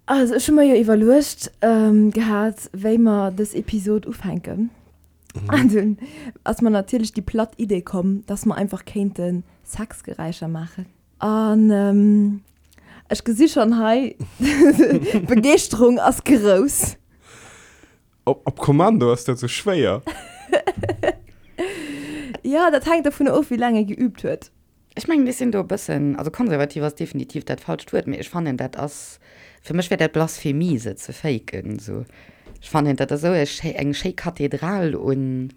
Also ech hu mer jo iwwerluecht gehat, wéi mer dës Episod ufänken. An dunn ass mer natierlech déi platt Idee komm, dass mer einfach kéinte Sexgeräischer maachen. An ech gesi schonn hei, d'Begeeschterung ass grouss. Op Kommando ass dat sou schwéier. Jo, dat hänkt dovun of, wéi laang ee geüübt huet. Ech mengen, ech sinn do e bëssen, also konservativ ass definitiv dat falscht Wuert, mee ech fannen, dat ass, fir mech wär dat Blasphemie, se ze faken esou. Ech fannen, dat ass esou e schéi, eng schéi Kathedral un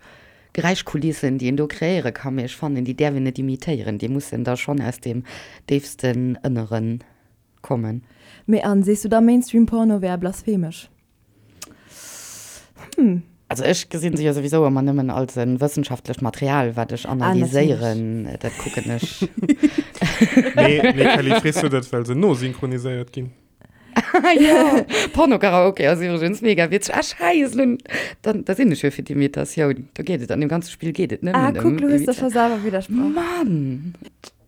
Geräischkulissen, déi een do kreéiere kann, mee ech fannen, déi däerf een net imitéieren, déi mussen da schonn aus dem déifsten Ënnere kommen. Mee an, sees du da Mainstream-Porno wär blasphemesch? Hm. Also ech gesinn se jo souwisou ëmmer nëmmen als e wëssenschaftlecht Material, wat ech analyséieren. Ah, dat kucken ech. Nee, nee, Kelly, frees du dat, well se nosynchroniséiert ginn? Jo, Porno-Karaoke ass iwwregens mega witzeg. Ah, Schäiss, nun, dann, da sinn ech jo fir d'Imitatioun. Do geet et, an deem ganze Spill geet et nëmmen ëm. Ah, kuck, lo hues de scho selwer widdersprach. Mann!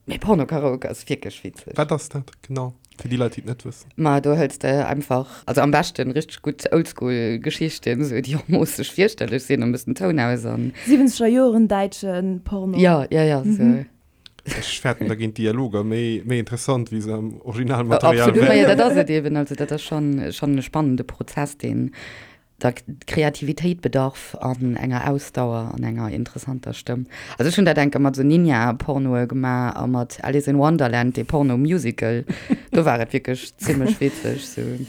Mee Porno-Karaoke ass wierklech witzeg. Wat ass dat genau, fir déi Leit, déi et net wëssen? Ma do hëls de einfach, also am beschten richteg gutt Oldschool Geschichten, esou déi och moosseg fierchterlech sinn, e bëssen Toun aus an. Siwwenzeger Joren däitsche Porno. Jo, jo, jo, esou. Ech fäerten, da ginn d'Dialoger méi, méi interessant, wéi se am Originalmaterial wären. Absolut, ma jo, dat ass et eben. Also dat ass schonn, schonn e spannende Prozess, deen der Kreativitéit bedarf an enger Ausdauer an enger interessanter Stëmm. Also ech hunn dat enke mat esou Ninja-Pornoe gemaach a mat Alice in Wonderland, dee Porno-Musical. Do war et wierklech zimmlech witzeg, sou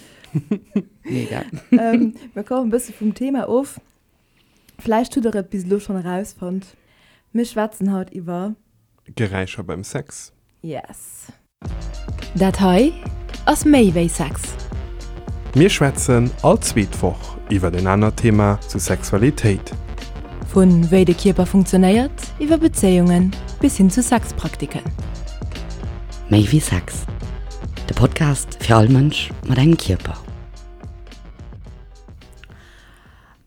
mega. Mir kommen e bësse vum Thema of. Vläicht hutt der et bis elo schonn erausfonnt, mir schwätzen haut iwwer. Geräischer beim Sex. Yes. Dat hei ass méi wéi Sex. Mir schwätzen all zweet Woch iwwert en anert Thema zu Sexualitéit. Vu wéi de Kierper funktionéiert, iwwer Bezéiungen bis hin zu Sexpraktiken. Méi wéi Sex, de Podcast fir all Mënsch mat engem Kierper.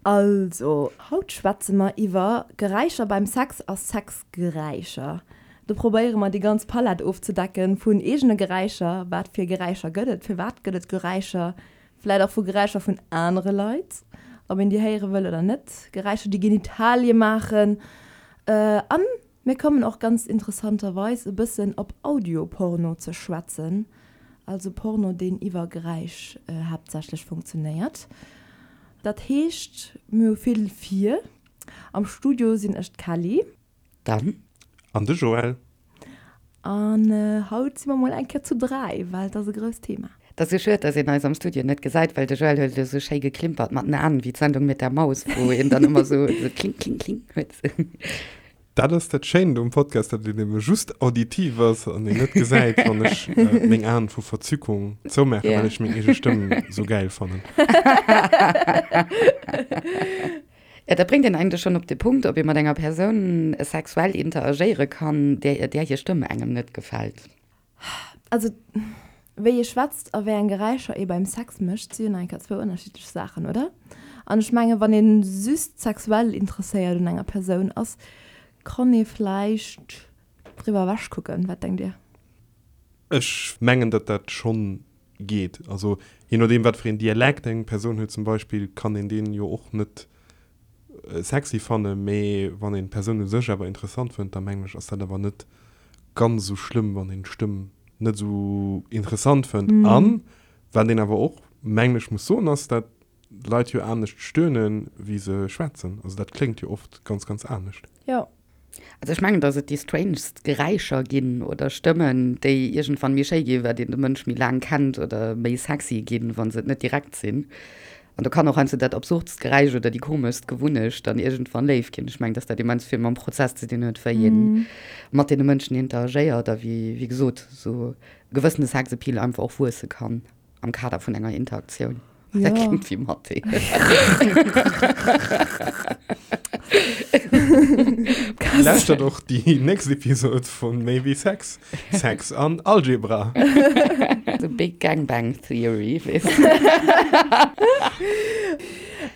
Also, haut schwätze mer iwwer Geräischer beim Sex a Sexgeräischer. Do probéiere mer déi ganz Palett ofzedecken vun eegene Geräischer, wat fir Geräischer gëtt et, firwat gëtt et Geräischer, vläit och vu Geräischer vun anere Leit, ob een déi héiere wëll oder net, Geräischer déi Genitalie maachen an mir kommen och ganz interessanterweis e bëssen op Audioporno ze schwätzen, also Porno deen iwwer Geräisch haaptsächlech funktionéiert. Dat heescht mir hu vill vir. Am Studio sinn ech d'Kelly. Dann. An de Joël. An haut si mer mol eng Kéier zu 3, well et ass e grousst Thema. Et ass esou schued, dass een eis am Studio net gesäit, well de Joël huet elo esou schéi geklimpert mat den Aen, wéi d'Sendung mit der Maus, wou een dann ëmmer esou kling, kling, kling huet. Dat ass dat Schéint um Podcast, datt een ebe just auditiv ass an een net gesäit, wann ech meng Aen vu Verzückung zoumaachen, well ech meng eege Stëmm esou gäil fannen. Jo, dat bréngt een eigentlech schonn op de Punkt, ob ee mat enger Persoun sexuell interagéiere kann, där där hir Stëmm engem net gefält. Also, wéi ee schwätzt a wéi eng Geräischer ee beim Sex mécht, si jo nach eng Kéier zwou ënnerschiddlech Saachen, oder? An ech mengen, wann ee just sexuell interesséiert un enger Persoun ass, kann ee vläicht driwwer ewechkucken. Wat denkt Dir? Ech mengen, datt dat schonn geet. Also je nodeem wat fir een Dialekt eng Persoun huet zum Beispill, kann een deen jo och net sexy fannen, mee wann een d'Persoun u sech awer interessant fënnt, da mengen ech ass dat awer net ganz esou schlëmm wann een d'Stëmm net esou interessant fënnt. An wat een awer och mengen ech muss soen ass, dat Leit jo anescht stöhnen wéi se schwätzen. Also dat kléngt jo oft ganz ganz anescht. Jo. Also ech mengen, dass et déi strangest Geräischer ginn oder Stëmmen, déi iergendwann méi schéi ginn, wat een de Mënsch méi laang kennt oder méi sexy ginn, wa se et net direkt sinn. An do kann och heiansdo dat absurdst Geräisch oder déi komeschst Gewunnecht dann iergendwann léif ginn. Ech mengen, dass dat immens vill mam Prozess ze dinn huet, wéi ee mat deene Mënschen interagéiert a wéi, wéi gesot, esou e gewëssene Sexappeal einfach och wuesse kann. Am Kader vun enger Interaktioun. Ja. Dat klingt wéi Mathé. Lauschtert och déi nächst Episod vun Méi wéi Sex, Sex an Algebra. The Big Gangbang Theory, weess de.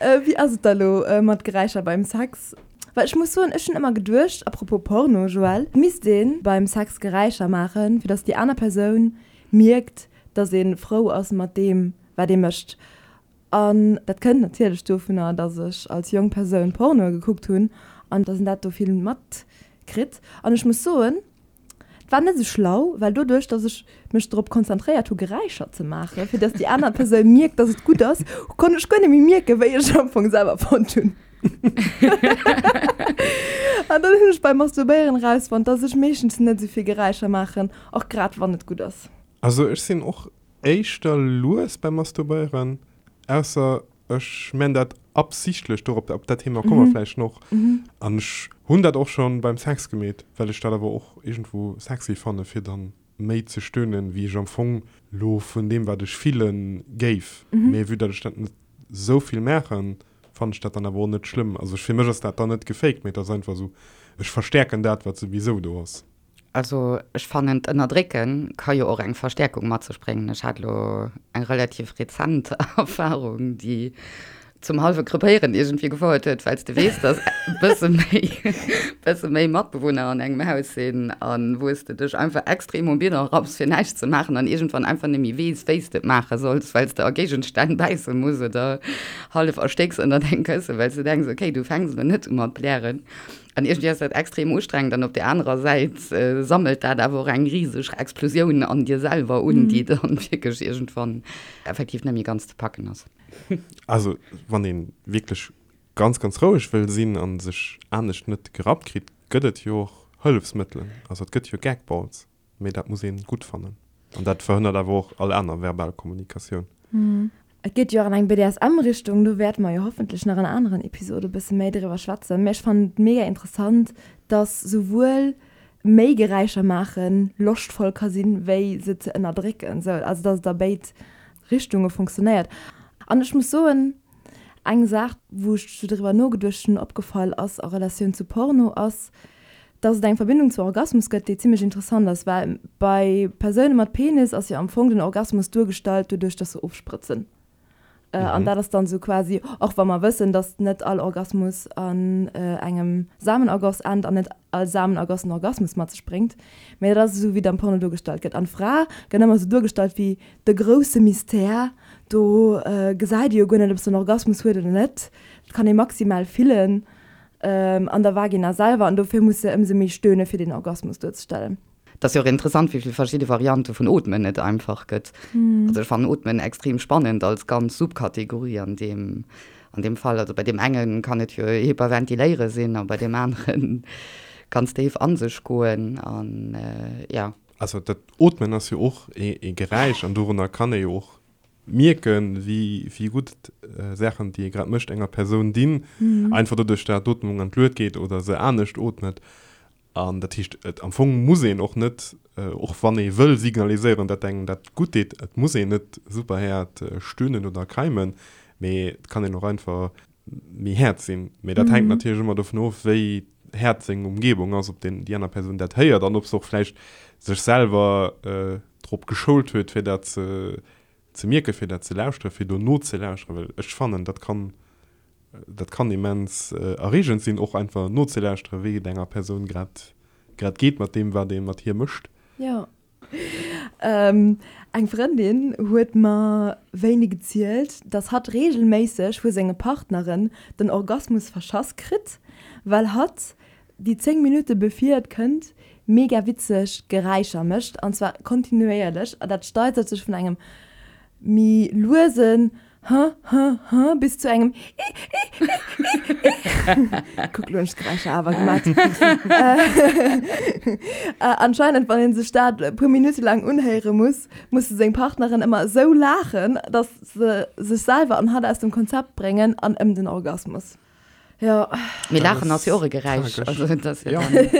Wéi ass et da lo mat Geräischer beim Sex? Well ech muss soen, ech hunn ëmmer geduecht, à propos Porno, Joël, et misst ee beim Sex Geräischer maachen, fir datt déi aner Persoun mierkt, dass een frou ass mat deem. wat ee mécht. An dat kënnt natierlech dovunner, dass ech als jonk Persoun Pornoe gekuckt hunn an dass een dat do vill matkritt. An ech muss soen, et war net esou schlau, well doduerch, dass ech mech drop konzentréiert hu Geräischer ze maachen, fir dass déi aner Persoun mierkt, dass et gutt ass, konnt ech guer net méi mierken, wéi ech am Fong selwer fonnt hunn. An dann hunn ech beim Masturbéieren erausfonnt, dass ech meeschtens net esou vill Geräischer maachen, och grad wann et gutt ass. Also ech sinn och Éischter lues beim Masturbéieren, ausser ech man dat absichtlech, dorop, op dat Thema komme mer vläicht noch. An ech hunn dat och schon beim Sex gemeet, well ech dat awer och iergendwou sexy fanne fir dann méi ze stöhnen, wéi ech am Fong lo vun deem wat ech fillen géif. Mee vue dat ech dat net sou vill maachen, fannen ech dat dann awer och net schlëmm. Also fir mech ass dat dann net gefaked, mee et ass einfach sou, ech verstäerken dat wat souwisou do ass. Also ech fannen d'Ënnerdrécke ka jo och eng Verstäerkung mat sech bréngen. Ech hat elo eng relativ rezent Erfarung, déi zum hallwe Krepéieren iergendwéi gefouert huet, well s de weess, datt e bësse méi, bësse méi Matbewunner an engem Haus sinn a wou s de dech einfach extrem um Bidon rapps fir näischt ze maachen an iergendwann einfach net méi weess, wéi s de et maache solls, well s de a Géigenstänn bäisse muss oder hallef erstécks ënnert engem Kësse, well s de denks, okay, du fänks elo net u mat blären. An iergendwéi ass dat extrem ustrengend an op där anerer Säit sammelt dat awer och eng riseg Explosioun an dir selwer un, déi dann wierklech iergendwann effektiv net méi ganz ze packen ass. Also wann ee wierklech ganz, ganz roueg wëll sinn a sech anescht net gerappt kritt, gëtt et jo och Hëllefsmëttelen. Also et gëtt jo Gagballs. Mee dat muss een gutt fannen. An dat verhënnert awer och all aner verbal Kommunikatioun. Et geet jo och an eng BDSM-Richtung, do wäerte mer jo hoffentlech nach an aneren Episode e bësse méi driwwer schwätzen. Mee ech fannen et mega interessant, dass souwuel méi Geräischer maache loschtvoll ka sinn, wéi se ze ënnerdrécken. Sou, also dass et a béid Richtunge funktionéiert. An ech muss soen, eng Saach, wou ech sou driwwer nogeduecht hunn, opgefall ass a Relatioun zu Porno, ass, dass et eng Verbindung zu Orgasmus gëtt, déi zimmlech interessant ass, well bei Persoune mat Penis ass jo am Fong den Orgasmus duergestallt doduerch, dass se ofsprëtzen. An dat ass dann esou quasi, och wa mer wëssen, dass net all Orgasmus an engem Samenergoss ennt an net all Samenergoss en Orgasmus mat sech bréngt, mä dat ass esou, wéi et am Porno duergestallt gëtt. An d'Fra gëtt ëmmer esou duergestallt wéi de grousse Mystère, do gesäit ee jo guer net, ob se en Orgasmus huet oder net, dat kann ee maximal fillen. An der Vagina selwer, an dofir muss se ëmsou méi stöhne fir den Orgasmus duerzestellen. Et ass jo och interessant, wéi vill verschidde Variante vun Ootmen et einfach gëtt. Also ech fannen Ootmen extrem spannend als ganz Subkategorie an deem, an deem Fall. Also bei deem enge kann et jo Hyperventiléiere sinn a bei deem anere ganz déif a sech goen an jo. Also dat Ootmen ass jo och ee Geräisch an dorunner kann ee jo och Mierken, wéi gutt Saachen, déi ee grad mécht, enger Persoun dinn, einfach doduerch, dat d'Ootmung an d'Luet geet oder se anescht ootmet. An dat heescht, et am Fong muss een och net, och wann ee wëll signaliséieren, dat engem dat gutt deet, et muss een net super haart stöhnen oder keimen, mee et kann een och einfach méi haart sinn. Mee dat hänkt natierlech ëmmer dovun of, wéi haart seng Umgebung ass, ob deen, déi aner Persoun dat héiert an ob se och vläicht sech selwer drop geschoult huet, fir dat ze, ze mierken, fir dat ze lauschteren, fir do nozelauschteren. Well ech fannen, dat kann, dat kann immens erreegend sinn, och einfach nozelauschteren, wéi et enger Persoun grad, grad geet mat deem, wat ee mat hir mécht. Jo. Eng Frëndin huet mer wéini gezielt, dass hatt reegelméisseg vu senge Partneren den Orgasmus verschass kritt, well hatt déi 10 Minutte bevir et kënnt mega witzeg Geräischer mécht, an zwar kontinuéierlech, an dat steigert sech vun engem méi luesen Huh, huh, huh, bis zu engem I, I, I, I, I. Kuck, lo hunn ech d'Geräischer awer gemat. Anscheinend, wann ee sech dat e puer Minutte laang unhéiere muss, musse seng Partneren ëmmer esou laachen, datt se sech selwer an hatt aus dem Konzept bréngen an ëm den Orgasmus. Jo. Mee Laachen ass jo och e Geräisch. Also et ass jo dann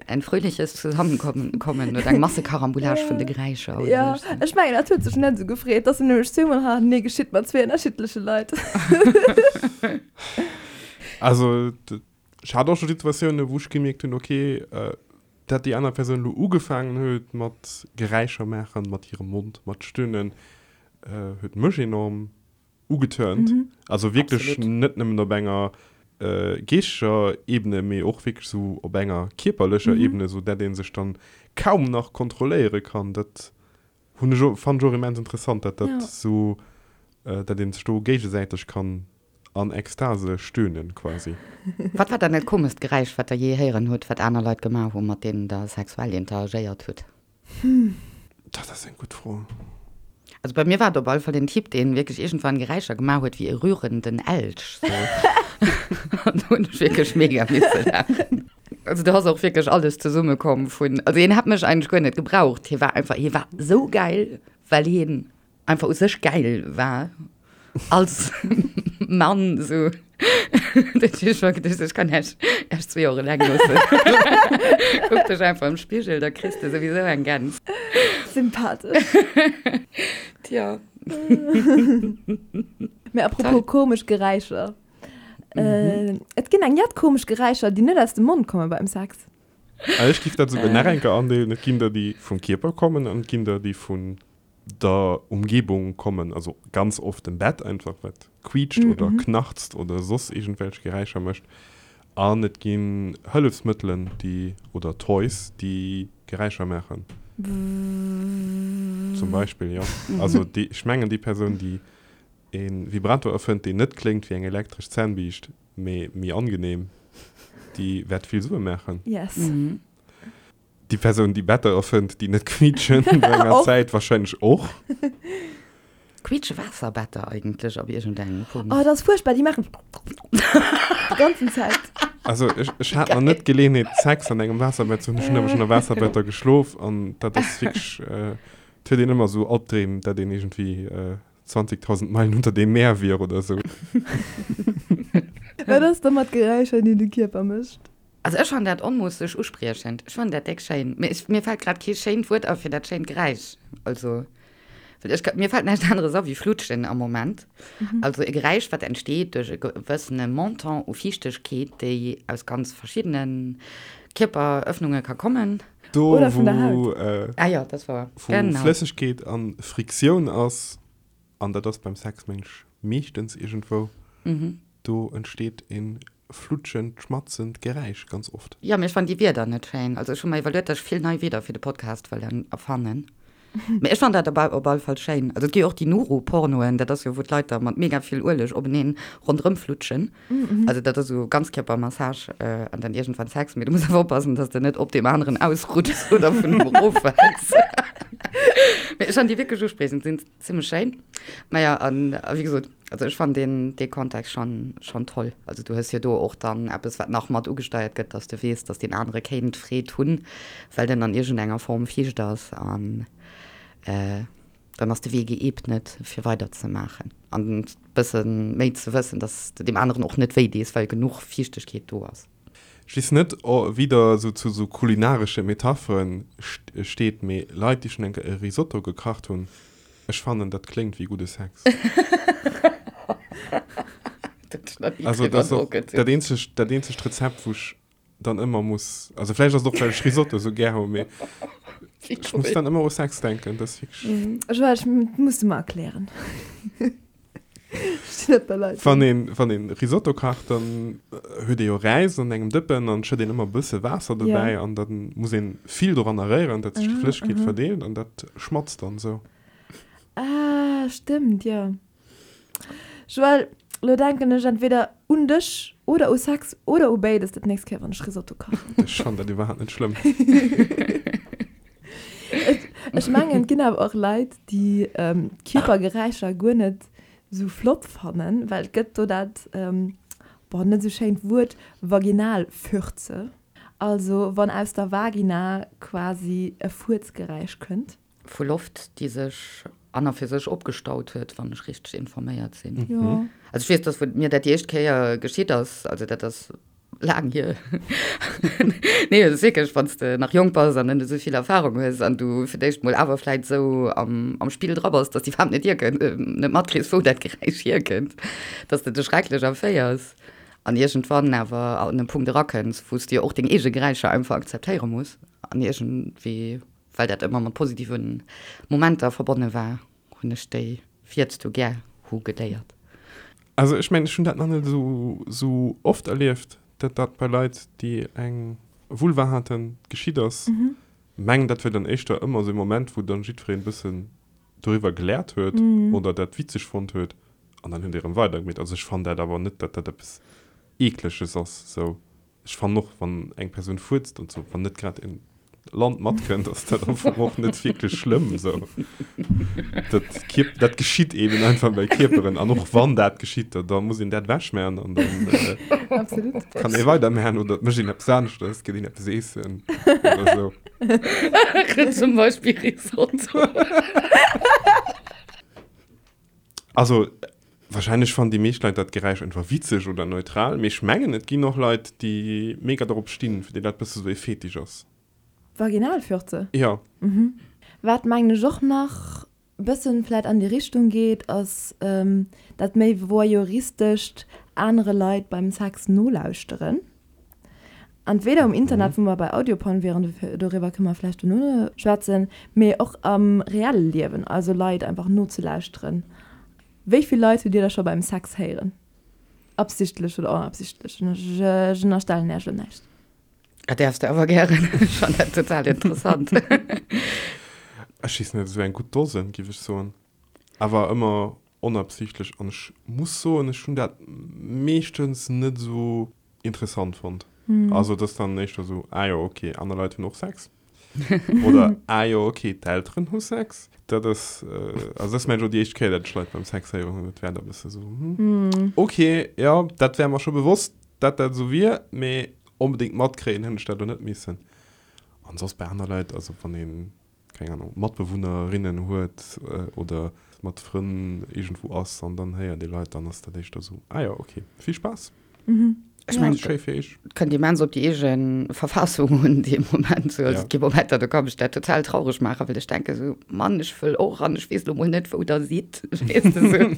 ein fröhliches Zusammenkommen kommen oder eng Massekarambolage vun de Geräischer. Jo, ech mengen dat huet sech net esou gefreet, dass en nämlech zweemol hannertenee geschitt mat zwee ënnerschiddleche Leit. Also ech hat och scho Situatiounen, wou ech gemierkt hunn, okay, dat déi aner Persoun elo ugefaangen huet mat Geräischer maachen, mat hirem Mond, mat Stöhnen, huet mech enorm ugeturnt. Also wierklech net nëmmen op enger geeschteger Ebene, mee och wierklech esou op enger kierperlecher Ebene, esou dat ee sech dann kaum nach kontrolléiere kann. Dat hunn ech och, fannen ech och immens interessant, dat dat esou. Dat een sech do géigesäiteg kann an Ekstase stöhnen quasi. Wat war dann dat komescht Geräisch, wat der jee héieren hutt, wat aner Leit gemaach hu mat deenen der sexuell interagéiert hutt? Dat ass eng gutt Fro. Also bei mir war et op alle Fall den Typ, deen wierklech iergendwann Geräischer gemaach huet wéi e rührenden Elch. Sou. An do hunn ech wierklech mega misse laachen. Also do ass och wierklech alles zesummekomm vun, also hien hätt mech eigentlech guer net gebraucht, hie war einfach, hie war sou geil, well hien einfach u sech geil war als Mann sou. Dat heescht, ech war geduecht, ech kann Iech Iech zwee och eleng loossen. Kuck dech einfach am Spigel, da kriss de souwisou eng Gäns. Sympathesch. Tja. Mee apropos komesch Geräischer. Et ginn eng jett komesch Geräischer, déi net aus dem Mond komme beim Sex. Ech giff dat souguer nach eng Kéier andeelen, Et ginn der, déi vum Kierper kommen an et ginn der, déi vun der Umgebung kommen, also ganz oft dem Bett einfach, wat quietscht oder knarzt oder soss iergendwelch Geräischer mécht. An et ginn Hëllefsmëttelen, déi, oder Toys, déi Geräischer maachen. Zum Beispill, jo. Also déi, ech mengen déi Persoun, déi e Vibrator erfënnt, deen net kléngt wéi eng elektresch Zännbiischt, mee méi angenehm, déi wäert vill Sue maachen. Yes. Déi Persoun, déi Better erfënnt, déi net quiitschen, no enger Zäit wahrscheinlech och. Quiitsche Waasserbetter eigentlech op iergendengem Punkt? Oh, dat ass fuerchtbar, déi maachen déi ganzen Zäit. Also ech, ech hat nach net d'Geleeënheet, Sex an engem Waasserbett ze hunn. Ech hunn awer schonn a Waasserbetter geschlof an dat ass wierklech, et huet een ëmmer esou Albdreem, dat een iergendwéi 20.000 Meilen unter dem Meer wier oder esou. Wat ass da mat Geräischer, déi de Kierper mécht? Also ech fannen dat onmoosseg uspriechend. Ech fannen dat déck schéin. Mee ech, mir fällt grad kee schéint Wuert a fir dat schéint Geräisch. Also, well ech, mir fällt näischt aneres a wéi Flutschen am Moment. Also e Geräisch, wat entsteet duerch e gewëssene Montant u Fiichtegkeet, déi aus ganz verschiddene Kierperëffnunge ka kommen. Do, Oder vun der wou, Haut. Ah jo, dat war, wou genau. Flëssegkeet a Friktioun ass, an dat ass beim Sex mengen ech meeschtens iergendwou, Do entsteet een flutschend, schmatzend Geräisch ganz oft. Jo, mee ech fannen déi Wierder net schéin. Also ech hu mer iwwerluet, dass ech vill nei Wierder fir de Podcast wëll erfannen. Mee ech fannen dat op op alle Fall schéin. Also et gi jo och déi Nuru-Pornoen, dat ass jo wou d'Leit da mat mega vill Ueleg openeen ronderëm flutschen. Also dat ass esou Ganzkierpermassage an dann iergendwann Sex. Mee du muss awer oppassen, dass de net op deem aneren ausrutschs oder vun him eroffäls. Mee ech fannen déi wierklech uspriechend, sinn Zimmlech schéin. Naja, an wéi gesot, also ech fannen deen, dee Kontext schon, schon toll. Also du hues jo do och dann eppes, wat nach mat ugesteiert gëtt, dass de weess, dass deen anere kéint Freed hunn, well den an iergendenger Form fiicht ass an dann ass de Wee geebnet fir weider ze maachen an bësse méi ze wëssen, dass de deem aneren och net wéi dees, well genuch Fiichtegkeet do ass. Ech weess net, wéi der esou zu esou kulinaresche Metapheren steet, mee Leit, déi schonn eng Kéier e Risotto gekacht hunn, ech fannen, dat kléngt wéi gudde Sex. Also dat ass och dat eenzegt, dat eenzegt Rezept, wou ech dann ëmmer muss, also vläicht ass et och, well ech Risotto esou gär hu, mee ech muss dann ëmmer u Sex denken. Dat ass wierklech. Joël, ech muss de mer erklären. Wann een, wann een Risotto kacht, dann huet ee jo Räis an engem Dëppen an schëtt een ëmmer e bësse Waasser dobäi an dann muss een vill doranner réieren, dat sech déi Flëssegkeet verdeelt an dat schmatzt dann esou. Ah, stëmmt, jo. Joël, lo denken ech entweder un dech oder u Sex oder u béides dat nächst Kéier, wann ech Risotto kachen. Ech fannen dat iwwerhaapt net schlëmm. Ech mengen, et ginn awer och Leit, déi Kierpergeräischer guer net esou flott fannen, well et gëtt do dat, boah, net esou schéint Wuert, Vaginalfürze. Also wann aus der Vagina quasi e Fuerzgeräisch kënnt. Vu Loft, déi sech an a fir sech opgestaut huet, wann ech richteg informéiert sinn. Jo. Also ech weess, dass wou mir dat déi éischt Kéier geschitt ass, also dat ass laang hier, nee et ass wierklech, wann s de nach jonk bass an net esou vill Erfahrung hues an du fir d'éischt mol awer vläit esou am am Spill dra bass, dass de iwwerhaapt net hierkënnt, net matkriss, wou dat Geräisch hierkënnt, dass de dech schrecklech erféiers an iergendwann awer an e Punkt erakënns, wou s de jo och deng eege Geräischer einfach akzeptéiere muss an iergendwéi, well dat ëmmer mat positive Momenter verbonne war, hunn ech déi Fierz du gär hu geléiert. Also ech mengen, ech hunn dat nach net esou esou oft erlieft, datt dat bei Leit, déi eng Vulva haten, geschitt ass. Mengen, dat wier dann éischter ëmmer esou e Moment, wou dann jiddwereen e bëssen. doriwwer geläert huet oder dat witzeg fonnt huet an dann huet ee rëm weidergemeet. Also ech fannen dat awer net, datt dat eppes Eekleges ass sou. Ech fannen och, wann eng Persoun fuerzt und sou, wann net grad en Land matkënnt, ass dat am Fong och net wierklech schlëmm sou. Dat Kierp, dat geschitt eben einfach bei Kierperen an och wann dat geschitt, da, da muss een dat ewechmachen an dann äh, Absolut. kann ee weidermachen oder et mécht een eppes aneschtes, geet een eppes eessen oder sou. Zum Beispill Risotto. Also, wahrscheinlech fannen déi meescht Leit dat Geräisch einfach witzeg oder neutral, mee ech mengen et ginn och Leit déi mega dorop stinn, fir déi dat bësse sou e Fetisch ass. Vaginalfürze? Jo. Wat mengen ech och nach bëssen vläit an déi Richtung geet, ass dat méi voyeuristescht anere Leit beim Sex nolauschteren. Entweder um Internet, wou mer bei Audioporn wieren, doriwwer kënne mer vläicht dono schwätzen, mee och am reelle Liewen, also Leit einfach nozelauschteren. Wéi vill Leit hutt Dir da scho beim Sex héieren? Absichtlech oder onabsichtlech? Ech ënnerstellen Iech elo näischt. Dat däerfs de awer gären. Ech fannen dat total interessant. Ech weess net, esou eng gutt Dosen, géif ech soen. Awer ëmmer onabsichtlech. An ech muss soen, ech hunn dat meeschtens net esou interessant fonnt. Also et ass dann éischter esou, ah jo ok, aner Leit hunn och Sex. Oder ah jo ok, d'Elteren hu Sex. Dat ass, also dat ass mengen ech och déi éischt Kéier, dat ech Leit beim Sex héieren hunn. Dat war da e bësse esou, hm, ok, jo, dat war mer scho bewosst, dat dat esou wier, mee onbedéngt matkréien hunn ech dat elo net missen. An soss bei aner Leit, also wann een keng Ahnung, Matbewunnerinnen huet oder mat Frënn iergendwou ass an dann héiert ee Leit, dann ass dat éischter esou, ah jo, ok, vill Spaass. Ech mengen, Schéi fir iech. Et kënnt immens op déi eege Verfassung un dee Moment. Sou, also et gi Momenter, do ka mech dat total traureg maachen, well ech denke sou, Mann, ech wëll och an ech weess lo mol net, wou der sidd. Weess de sou.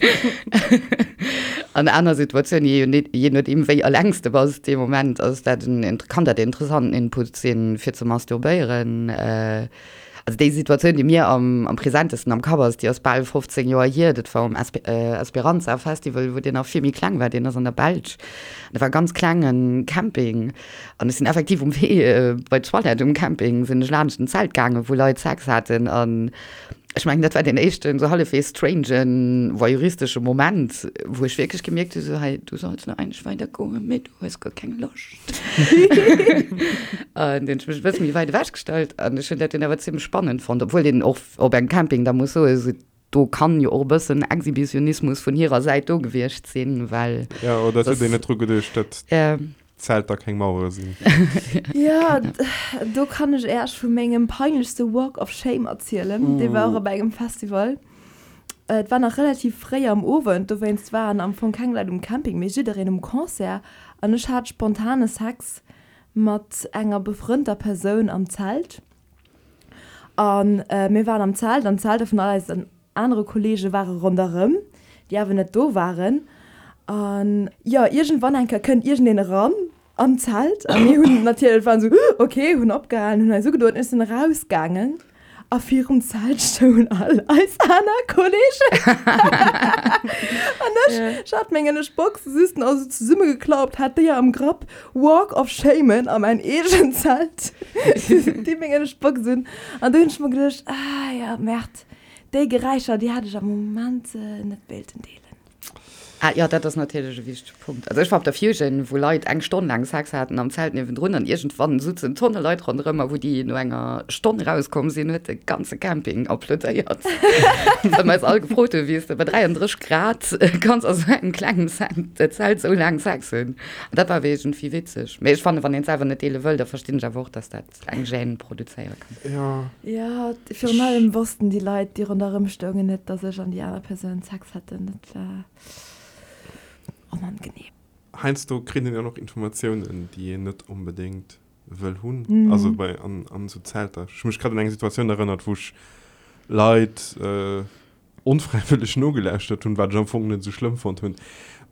An aner Situatiounen, je je nodeem wéi eleng s de bass dee Moment, ass dat en, kann dat en interessanten Input sinn, fir ze masturbéieren. Also déi Situatioun, déi mir am am presentesten am Kapp ass, déi ass bal 15 Joer hier. Dat war um Esperanza Festival, wou deen nach vill méi kleng war. Deen ass an der Belsch. Dat war e ganz klenge Camping. An ech sinn effektiv um Wee bei d'Toilette um Camping sinn ech laanscht en Zelt gaangen, wou Leit Sex haten. An ech mengen, dat war deen éischten esou hallefwegs strangen, voyeuristesche Moment, wou ech wierklech gemierkt hu sou, hei, du solls lo eigentlech weidergoen, mee du hues guer keng Loscht. An dunn hunn ech mech e bësse méi wäit ewech gestallt an ech hunn dat dunn awer zimmlech spannend fonnt, obwuel een och op engem Camping da muss soen, esou do kann jo och e bëssen Exhibitionismus vun hirer Säit do gewiescht sinn, well. Jo, oder et huet een net dru geduecht, datt d'Zelter keng Mauere sinn. Jo, do kann ech Äech vu mengem peinlechste Walk of Shame erzielen. Dee war och op engem Festival. Et war nach relativ fréi am Owend, dowéinst waren am Fong keng Leit um Camping, mee jiddereen um Concert. An ech hat spontane Sex mat enger befrënnter Persoun am Zelt. A mir waren am Zelt an d'Zelter vun all eisen anere Kolleege ware ronderëm, déi awer net do waren. An jo, iergendwann eng Kéier kënnt iergendeen eran an d'Zelt a mir hunn natierlech, waren esou, ok, hunn opgehalen, hunn eis ugedoen, ech sinn erausgaangen a virum Zelt stoungen all eis aner Kolleegen an ech, ech hat meng ënnescht Box just nach esou zesummegeklappt, hat déi am Grapp, Walk of Shame a mäin eegent Zelt, déi meng ënnescht Box un an du hunn ech mer geduecht, ah ja, Merde, déi Geräischer, déi hätt ech am Moment net wéilten deelen. Ah jo, dat ass natierlech e wichtege Punkt. Also ech war op der Fusion, wou Leit eng Stonn laang Sex haten am Zelt niewendrun an iergendwann sutzen Tonne Leit ronderëm a wou déi no enger Stonn rauskomm sinn, huet de ganze Camping applaudéiert, well mer eis all gefrot hunn, wéi s de bei 33 Grad kanns a sou engem klengen Zelt sou laang Sex hunn. An dat war awer iergendwéi witzeg. Mee ech fannen, wann een et selwer net deele wëll, da verstinn ech awer och, dass dat eng Gêne produzéiere kann. Jo. Jo, virun allem wossten déi Leit, déi ronderëm stoungen, net, dass ech an déi aner Persoun Sex hätten. Dat war onangenehm. Heiansdo kritt een jo och Informatiounen, déi een net onbedéngt wëll hunn. Also bei an, an esou Zelter. Ech hu mech grad un eng Situatioun erënnert, wou ech Leit onfräiwëlleg nogelauschtert hunn, wat ech am Fong net esou schlëmm fonnt hunn.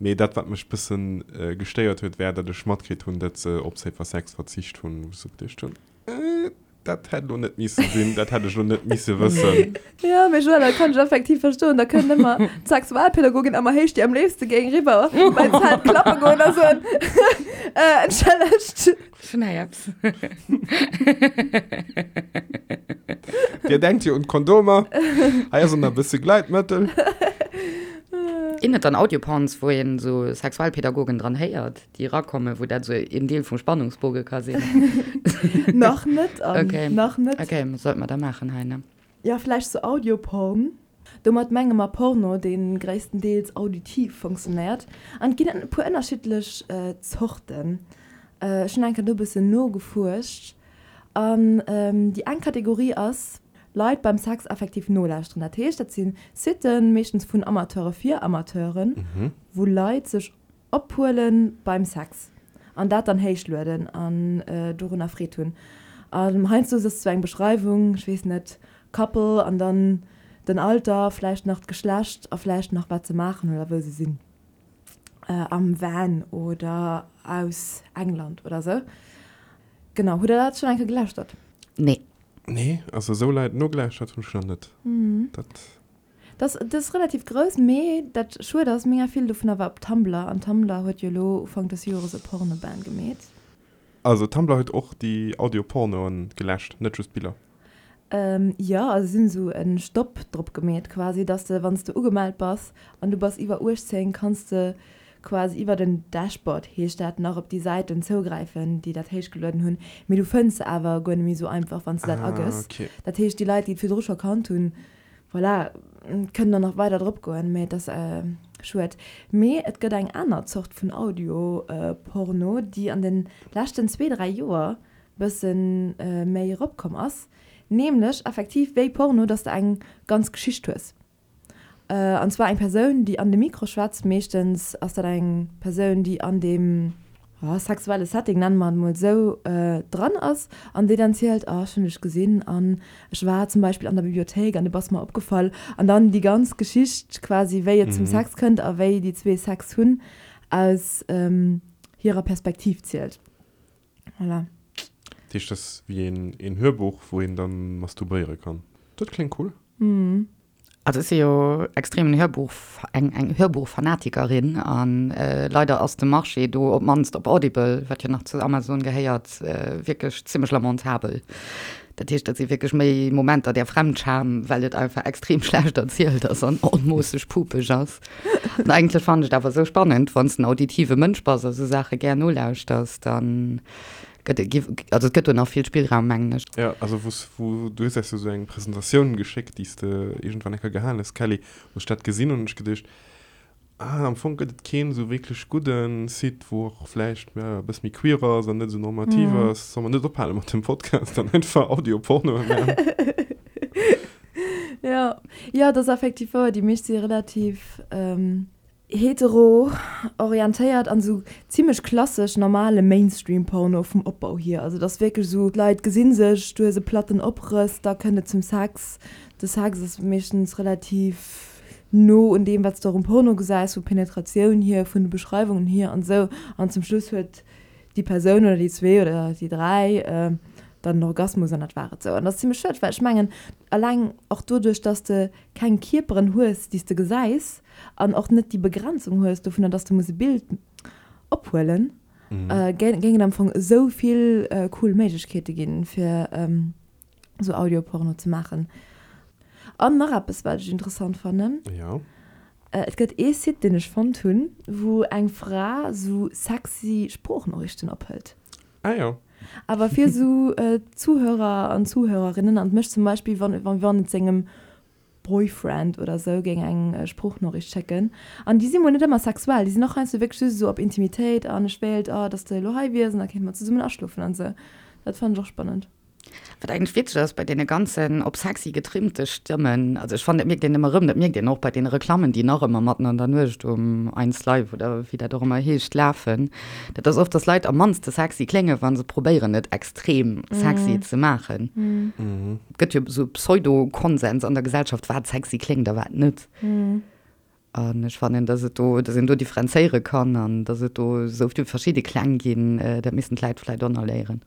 Mee dat, wat mech bëssen gestéiert huet, war, datt ech matkritt hunn, datt se op Safer Sex verzicht hunn, wou ech esou geduecht hunn, Dat hätt elo net misse sinn, dat hätt ech elo net misse wëssen. Jo, mee Joëlle, dat kann ech effektiv verstoen. Da kënnt ëmmer d'Sexualpädagogin ëmmer héich, déi am léifste géing riwwer bei d'Zelt klappe goen a soen, Äh, entschëllegt. Ech hunn hei eppes. Dir denkt jo un d'Kondomer. Hei ass och nach e bësse Gleitmëttel. Ginn et dann Audioporns, wou een esou Sexualpädagogen dran héiert, déi erakommen, wou dat esou een Deel vum Spannungsboge ka sinn? Nach net, Anne. Okay. Nach net. Okay, sollte mer da maachen hei, ne? Jo, vläicht sou Audioporn. Domat menge mer Porno, dee gréisstendeels auditiv funktionéiert. An et ginn e puer ënnerschiddlech Zorten. Ech hunn eng Kéier do e bëssen nogefuerscht. An déi eng Kategorie ass, Leit beim Sex effektiv nolauschteren. Dat heescht, dat si Siten, meeschtens vun Amateure fir Amateuren, wou Leit sech Ophuelen beim Sex an dat dann héichlueden an dorunner Freed hunn. An heiansdo ass et sou eng Beschreiwung, ech weess net, Couple an dann den Alter, vläicht nach d'Geschlecht a vläicht nach wat se maachen oder wou se sinn, am Van oder aus England oder sou. Genau, hutt der dat schonn eng Kéier gelauschtert? Nee. Nee, also esou Leit nogelauschtert hunn ech nach net. Dat. Dat ass relativ grouss, mee dat schued ass, mega vill dovunner war op Tumblr an Tumblr huet jo elo Ufank des Jores e Porno-Ban gemeet. Also Tumblr huet och déi Audio-Pornoen geläscht, net just d'Biller? Jo, also si hunn esou e Stopp drop gemeet quasi, dass de wann s de ugemellt bass an du bass iwwer 18, kanns de quasi iwwer den Dashboard heescht dat nach op déi Säiten zougräifen, déi dat héichgelueden hunn, mee du fënns se awer guer net méi esou einfach wann s de dat agëss. Dat heescht déi Leit déi et virdru scho kannt hunn, Voilà, kënnen der nach weider drop goen, mee et ass schued. Mee et gëtt eng aner Zort vun Audio-Porno, déi an de leschten zwee, dräi Joer bësse méi eropkomm ass, nämlech effektiv wéi Porno, dass de eng ganz Geschicht hues. An zwar eng Persoun, déi an de Mikro schwätzt, meeschtens ass dat eng Persoun, déi an deem sexuelle Setting, nenne mer et emol esou, dran ass an déi dann zielt, oh ech hunn dech gesinn an ech war zum Beispill an der Bibliothéik an du bass mer opgefall an dann déi ganz Geschicht quasi wéi et zum Sex kënnt a wéi déi zwee Sex hunn aus hirer Perspektiv zielt. Voilà. Dat heescht, dat ass wéi een Hörbuch, wou een dann masturbéiere kann. Dat kléngt cool. Also ech si jo extremen Hörbuch, eng eng Hörbuchfanatikerin an leider ass de Marché do, op d'mannst op Audible, wat jo nach zu Amazon gehéiert, wierklech zimmlech lamentabel. Dat heescht, dat si wierklech méi Momenter der Fremdscham, well et einfach extrem schlecht erzielt ass an onmoosseg pupeg ass. An eigentlech fannen ech et awer esou spannend, wann s de en auditive Mënsch bass a sou Saache gär nolauschters, dann Gëtt et, also et gëtt do nach vill Spillraum, mengen ech. Jo, also wou s, wou, du hues eis jo sou eng Presentatioun geschéckt, déi s de iergendwann eng Kéier gehalen hues, Kelly, wou ech dat gesinn hunn, hunn ech geduecht, ah, am Fong gëtt et keen esou wierklech gudde Site, wou och vläicht, ja, e bësse méi queer ass an net esou normativ ass. Solle mer net ophale mat dem Podcast an einfach Audio-Pornoe maachen? Jo, jo, et ass effektiv wouer, déi meescht si relativ, Hetero orientéiert an sou zimlech klassesch normale Mainstream Porno vum Opbau hier. Also et ass wierklech sou, d'Leit gesinn sech, du hues e platten Oprëss, da kënnt et zum Sex. De Sex ass meeschtens relativ no un deem wat s de och um Porno gesäis, vu Penetratioun hier, vun de Beschreiwungen hier an sou. An zum Schluss huet déi Persoun oder déi zwee oder déi dräi dann en Orgasmus an dat war et sou. An dat ass zimlech schued, well ech mengen alleng och doduerch, dass de keng Kierperen hues, déi s de gesäis, an och net déi Begrenzung hues dovunner, dass de muss e Bild ophuelen, géing et am Fong esou vill cool Méiglechkeete ginn, fir esou Audioporno ze maachen. An nach eppes, wat ech interessant fannen, Et gëtt ee Site, deen ech fonnt hunn, wou eng Fra esou sexy Sproochnoriichten ophëlt. Ah jo. Awer fir esou Zuhörer an Zuhörerinnen an mech zum Beispill, wann wann et sengem Boyfriend oder sou géing eng Sproochnoriicht schécken. An déi si mol net ëmmer sexuell, déi sinn och heiansdo wierklech just esou op Intimitéit an ech wéilt, oh, dass de elo hei wiers an da kéinte mer zesummen aschlofen an sou. Dat fannen ech och spannend. Wat eigentlech witzeg ass bei deene ganzen op sexy getrimmte Stëmmen, also ech fannen dat mierkt een ëmmer erëm, dat mierkt een och bei deene Reklammen déi nach ëmmer matten an der Nuecht um Eins Live oder wéi dat och ëmmer heescht lafen, dat ass oft, dass Leit am mannste sexy kléngen, wa se probéieren et extrem sexy ze maachen. Gëtt jo esou Pseudo-Konsens an der Gesellschaft, wat sexy kléngt a wat net. An ech fannen, dass et do, dass een do differenzéiere kann an dass et do esou vill verschidde Kläng ginn, dat missten d'Läit vläicht och nach léieren.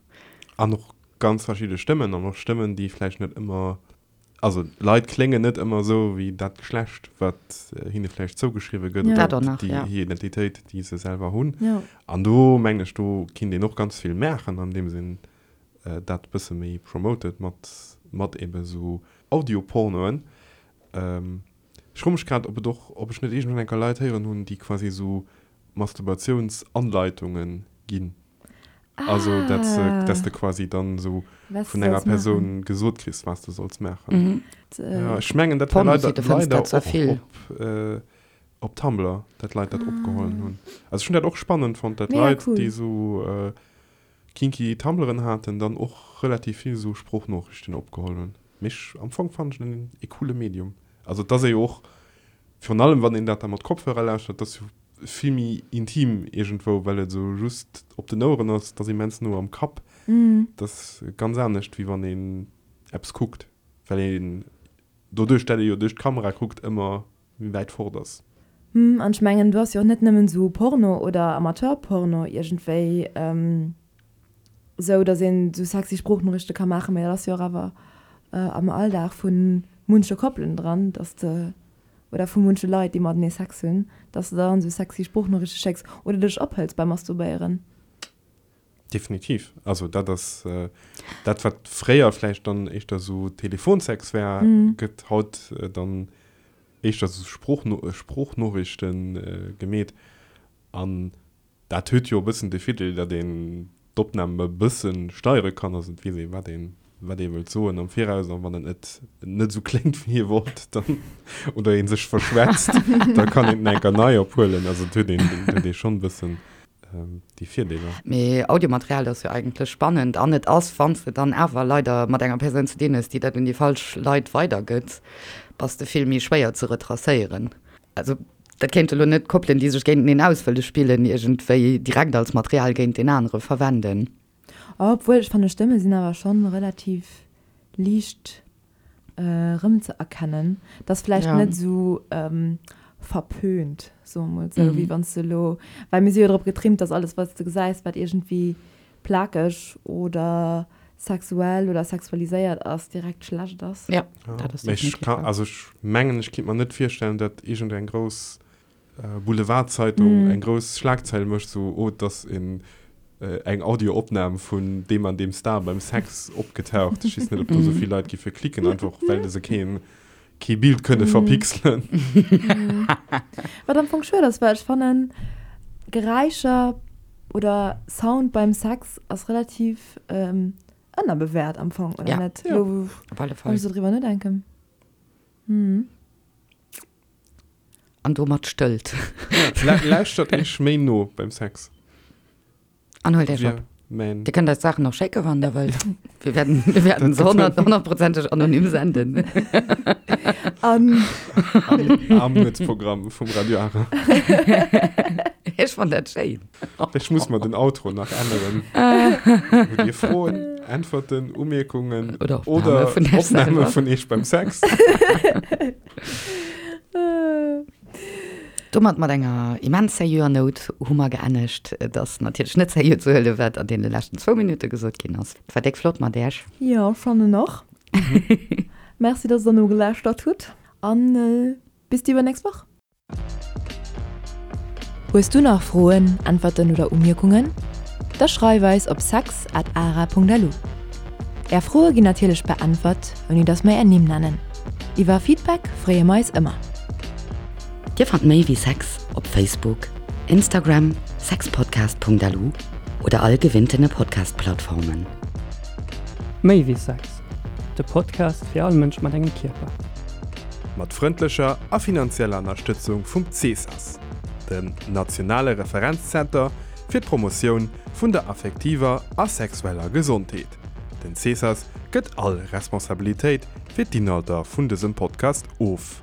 An och ganz verschidde Stëmmen an och Stëmmen, déi vläicht net ëmmer. Also Leit kléngen net ëmmer esou wéi dat Geschlecht, wat hinne vläicht zougeschriwwe gëtt Ja. oder Dat och nach, déi ja. hir Identitéit, déi se selwer hunn. Ja. An do mengen ech, do kinnt een och ganz vill maachen, andeems een dat e bësse méi promotet mat, mat ebe sou Audiopornoen. Ech froe mech grad, ob et och, ob ech net iergendwann eng Kéier Leit héieren hunn, déi quasi esou Masturbatiouns-Anleitungen ginn. Also dat se, dass de quasi dann esou Was vun du enger solls maachen. Persoun gesot kriss, was de solls maachen. Ja, ech mengen, dat war Pornosite leider, fënns leider dat zwar och vill. op, op Tumblr, dat Leit dat opgehollen hunn. Also ech hunn dat och spannend fonnt, dat Mega Leit, cool. déi esou kinky Tumblren haten, dann och relativ vill esou Sproochnoriichten opgeholl hunn. Mee ech, am Fong fannen ech en e coole Medium. Also et ass ee jo och, virun allem wann een dat da mat Kopfhörer lauschtert, et ass jo vill méi intim iergendwou, well et esou just op den Oueren ass, et ass immens no am Kapp. Et ass ganz anescht wéi wann een eppes kuckt, well een doduerch dat ee jo duerch d'Kamera kuckt ëmmer méi wäit fort ass. Hm, an ech mengen do ass jo och net nëmmen esou Porno oder Amateurporno iergendwéi esou, datt een esou sexy Sproochnoriichte ka maachen, mä dat ass jo och awer am Alldag vu munche Koppelen dran, datt de, oder vu munche Leit, déi matenee Sex hunn, datt s de dann esou sexy Sproochnoriichte schécks oder dech ophëls beim Masturbéieren. Definitiv. Also dat ass dat, wat fréier vläicht dann éischter esou Telefonsex war, gëtt haut dann éischter esou Sproochnoriichte gemeet. An dat huet jo e bëssen de Virdeel, datt een d'Opnam e bësse steiere kann. Also et weess ee wat een wat ee wëllt soen am Viraus. An wann et net net esou kléngt wéi ee wollt, dann oder ee sech verschwätzt, da kann een en enker nei ophuelen. Also et huet een huet ee schonn e bëssen déi Virdeeler. Mee Audiomaterial ass jo eigentlech spannend an et ass, wann s de dann awer leider mat enger Persoun ze dinn hues, déi dat un déi falsch Leit weidergëtt, bass de vill méi schwéier ze retracéieren. Also dat kéinte lo net Koppelen, déi sech géinteneen aus wëlle spillen, iergendwéi direkt als Material géint deen anere verwenden. Obwuel, ech fannen Stëmme sinn awer schonn relativ liicht erëmzeerkennen. Et ass vläicht Ja. net esou verpönt, soe mer mol esou, wéi wann s de elo, well mir si jo drop getrimmt, dass alles, wat s de gesäis, wat iergendwéi plakeg oder sexuell oder sexualiséiert ass, direkt schlecht ass. Ja, dat ass Mee ech definitiv ka, wahr. also ech mengen, ech kinnt mer net virstellen, datt iergendeng grouss Boulevardzeitung eng grouss Schlagzeil mécht, sou, oh, et ass een, eng Audioopnam vun deem an deem Star beim Sex opgetaucht. Ech weess net, ob do sou vill Leit giffe klicken, einfach well se keen, kee Bild kënne verpixelen. Wat am Fong schued ass, well ech fannen, Geräischer oder Sound beim Sex ass relativ ënnerbewäert am Fong, oder Ja. net? Ja. Lo, wou Op alle ech Fall. esou driwwer nodenken. An domat stëllt. Ja, lauschtert iech méi no beim Sex. An huelt iech op. Mäin. Dir kënnt eis d'Saachen och schécke wann der wëllt. Wir werden, wir werden se honnertprozenteg anonym senden. An. Am Armutsprogramm vum Radio Ara. Ech fann dat schéin. Ech muss mer den Outro nach änneren. Hutt Dir Froen, Äntwerten, Umierkungen Oder Opname vun Iech Opname selwer? vun Iech beim Sex? Domat, mat enger immens seriöer Nout, hu mer geennegt. Et ass natierlech net seriö ze huelen, wat an deene leschten zwou Minutte gesot ginn ass. Et war déck flott mat Äech. Jo, fannen och. Merci, dass der nogelauschtert hutt an bis déi iwwernächst Woch. Hues du nach Froen, Äntwerten oder Umierkungen? Da schreif eis op sex at ara.lu. Är Froe ginn natierlech beäntwert, ouni dass mer är Nimm nennen. Iwwer Feedback freeë mer eis ëmmer. Dir fannt méi wéi Sex op Facebook, Instagram, sexpodcast.lu oder all gewinntene Podcast-Plattformen. Méi wéi Sex, de Podcast fir all Mënsch mat engem Kierper. Mat frëndlecher a finanzieller Ënnerstëtzung vum CESAS, dem nationale Referenzzenter fir d'Promotioun vun der affektiver a sexueller Gesondheet. Den CESAS gëtt all Responsabilitéit fir d'Inhalter vun dësem Podcast of.